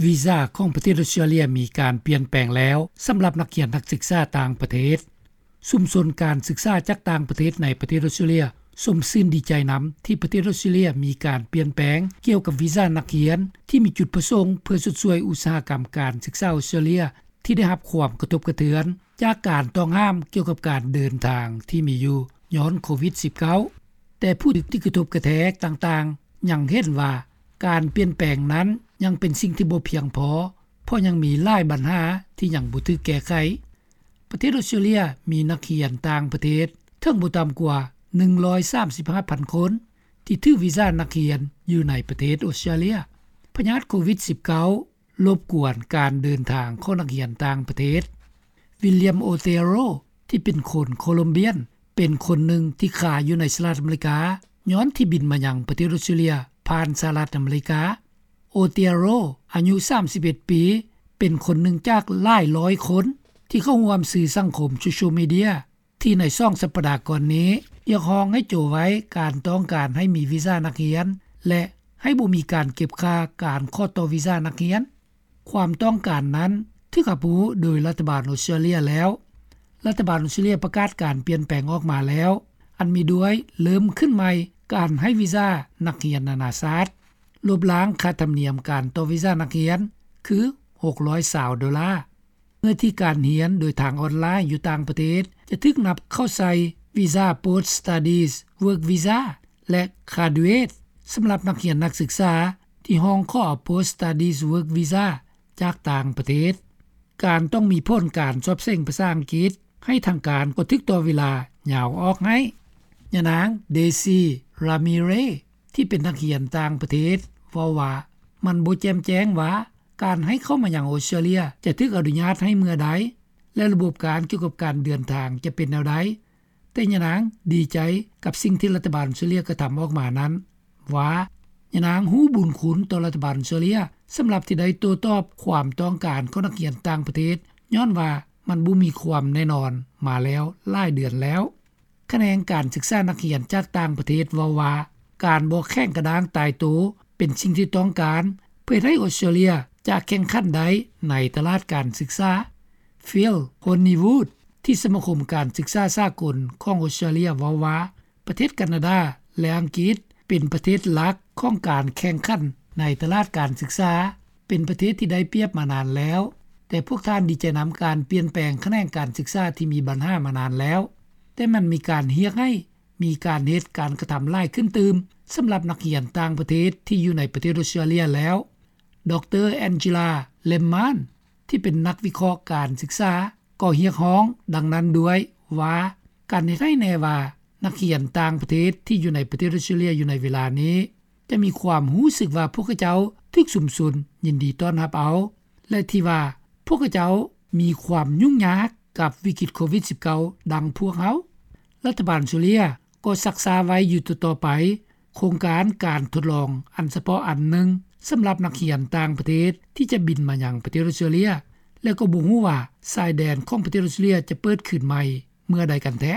ວີຊາຂອງປະເທດອົດສະຕຣາເລຍມີການປ່ຽນແປງແລ້ວ ສຳລັບນັກຮຽນນັກສຶກສາຕ່າງປະເທດ. ຊຸມຊົນການສຶກສາຈາກຕ່າງປະເທດໃນປະເທດອົດສະຕຣາເລຍຊົມຊື່ນດີໃຈນຳ ທີ່ປະເທດອົດສະຕຣາເລຍມີການປ່ຽນແປງກ່ຽວກັບວີຊານັກຮຽນ ທີ່ມີຈຸດປະສົງເພື່ອຊົດຊ່ວຍອຸດສາຫະກຳການສຶກສາອົດສະຕຣາເລຍ ທີ່ໄດ້ຮັບຄວາມກະທົບກະເທືອນຈາກການຕ້ອງຫ້າມກ່ຽວກັບການເດີນທາງທີ່ມີຢູ່ຍ້ອນໂຄວິດ-19. ແຕ່ຜູ້ທີ່ກະທົບກະແທກຕ່າງໆຍັງເຫັນວ່າ ການປ່ຽນແປງນັ້ນຍັງເປັນສິ່ງທີ່ບໍ່ພຽງພໍ ເພາະຍັງມີຫຼາຍບັນຫາທີ່ຍັງບໍ່ຖືກແກ້ໄຂ. ປະເທດອົດສະຕຣາເລຍມີນັກຮຽນຕ່າງປະເທດເຖິງບໍ່ຕ່ຳກວ່າໜຶ່ງຮ້ອຍສາມສິບຫ້າພັນຄົນ ທີ່ຖືກວີຊານັກຮຽນຢູ່ໃນປະເທດອົດສະຕຣາເລຍ. ພະຍາດໂຄວິດ-19 ລົບກວນການເດີນທາງຂອງນັກຮຽນຕ່າງປະເທດ. ວິລຽມ ໂອເຕໂຣ ທີ່ເປັນຄົນໂຄລັມເບຍນ ເປັນຄົນໜຶ່ງທີ່ຄາຢູ່ໃນສະຫະລັດອາເມລິກາ ຍ້ອນທີ່ບິນມາຍັງປະເທດອົດສະຕຣາເລຍຜ່ານສະຫະລັດອາເມລິກາ. ໂອເຕໂຣ ອາຍຸສາມສິບເອັດປີ ເປັນຄົນໜຶ່ງຈາກຫຼາຍຮ້ອຍຄົນ ທີ່ເຂົ້າຮ່ວມສື່ສັງຄົມໂຊຊຽວມີເດຍ ທີ່ໃນສອງສັບປະດາກ່ອນນີ້ ຮຽກຮ້ອງໃຫ້ໂຈະໄວ້ການຕ້ອງການໃຫ້ມີວີຊານັກຮຽນ ແລະ ໃຫ້ບໍ່ມີການເກັບຄ່າການຂໍຕໍ່ວີຊານັກຮຽນ. ຄວາມຕ້ອງການນັ້ນຖືກຮັບຮູ້ໂດຍລັດຖະບານອົດສະຕຣາເລຍແລ້ວ. ລັດຖະບານອົດສະຕຣາເລຍປະກາດການປ່ຽນແປງອອກມາແລ້ວ ອັນມີດ້ວຍເລີ່ມຂຶ້ນໃໝ່ການໃຫ້ວີຊານັກຮຽນນານາຊາດ, ລົບລ້າງຄ່າທຳນຽມການຕໍ່ວີຊານັກຮຽນ ຄື ຫົກຮ້ອຍຊາວໂດລາ. ເມື່ອທີ່ການຮຽນໂດຍທາງອອນລາຍຢູ່ຕ່າງປະເທດ ຈະຖືກນັບເຂົ້າໃສ່ວີຊາ Post Studies Work Visa ແລະ Graduate ສຳລັບນັກຮຽນນັກສຶກສາ ທີ່ຮ້ອງຂໍເອົາ Post Studies Work Visa ຈາກຕ່າງປະເທດ. ການຕ້ອງມີຜົນການສອບເສັງພາສາອັງກິດໃຫ້ທາງການກໍຖືກຕໍ່ເວລາຍາວອອກໃຫ້. ຍານາງ ເດຊີ ຣາມີເຣ ທີ່ເປັນນັກຮຽນຕ່າງປະເທດ ເວົ້າວ່າ ມັນບໍ່ແຈ່ມແຈ້ງວ່າ ການໃຫ້ເຂົ້າມາຍັງອົດສະຕຣາເລຍຈະຖືກອະນຸຍາດໃຫ້ເມື່ອໃດ ແລະ ລະບົບການກ່ຽວກັບການເດີນທາງຈະເປັນແນວໃດ, ແຕ່ຍານາງດີໃຈກັບສິ່ງທີ່ລັດຖະບານອົດສະຕຣາເລຍກະທຳອອກມານັ້ນວ່າ ຍານາງຮູ້ບຸນຄຸນຕໍ່ລັດຖະບານອົດສະຕຣາເລຍ ສຳລັບທີ່ໄດ້ໂຕ້ຕອບຄວາມຕ້ອງການຂອງນັກຮຽນຕ່າງປະເທດ ຍ້ອນວ່າມັນບໍ່ມີຄວາມແນ່ນອນມາແລ້ວຫຼາຍເດືອນແລ້ວ. ຂະແໜງການສຶກສານັກຮຽນຈາກຕ່າງປະເທດເວົ້າວ່າ ການບໍ່ແຂງກະດ້າງຕາຍໂຕເປັນສິ່ງທີ່ຕ້ອງການ ເພື່ອເຮັດໃຫ້ອົດສະຕຣາເລຍຈະແຂ່ງຂັນໄດ້ໃນຕະຫຼາດການສຶກສາ. ຟິລ ໂຮນນີວູດ ທີ່ສະມາຄົມການສຶກສາສາກົນຂອງອົດສະຕຣາເລຍເວົ້າວ່າ ປະເທດການາດາ ແລະ ອັງກິດ ເປັນປະເທດຫຼັກຂອງການແຂ່ງຂັນໃນຕະຫຼາດການສຶກສາ, ເປັນປະເທດທີ່ໄດ້ປຽບມານານແລ້ວ, ແຕ່ພວກທ່ານດີໃຈນຳການປ່ຽນແປງຂະແໜງການສຶກສາທີ່ມີບັນຫາມານານແລ້ວ, ແຕ່ມັນມີການຮຽກໃຫ້ມີການເຮັດການກະທຳຫຼາຍຂຶ້ນຕື່ມ ສຳລັບນັກຮຽນຕ່າງປະເທດທີ່ຢູ່ໃນປະເທດອົດສະຕຣາເລຍແລ້ວ. ດຣ ແອນຈີລາ ເລມມານ ທີ່ເປັນນັກວິເຄາະການສຶກສາ ກໍຮຽກຮ້ອງດັ່ງນັ້ນດ້ວຍວ່າ ການເຮັດໃຫ້ແນ່ວ່າ ນັກຮຽນຕ່າງປະເທດທີ່ຢູ່ໃນປະເທດອົດສະຕຣາເລຍຢູ່ໃນເວລານີ້ ຈະມີຄວາມຮູ້ສຶກວ່າພວກເຂົາເຈົ້າຖືກຊຸມຊົນຍິນດີຕ້ອນຮັບເອົາ ແລະ ທີ່ວ່າພວກເຂົາເຈົ້າມີຄວາມຫຍຸ້ງຍາກກັບວິກິດໂຄວິດ-19 ດັ່ງພວກເຮົາ. ລັດຖະບານອົດສະຕຣາເລຍກໍຊັກຊ້າໄວ້ຢູ່ຕໍ່ໆໄປ ໂຄງການການທົດລອງອັນສະເພາະອັນໜຶ່ງ ສຳລັບນັກຮຽນຕ່າງປະເທດທີ່ຈະບິນມາຍັງປະເທດອົດສະຕຣາເລຍ ແລະ ກໍບໍ່ຮູ້ວ່າຊາຍແດນຂອງປະເທດອົດສະຕຣາເລຍຈະເປີດຄືນໃໝ່ເມື່ອໃດກັນແທ້.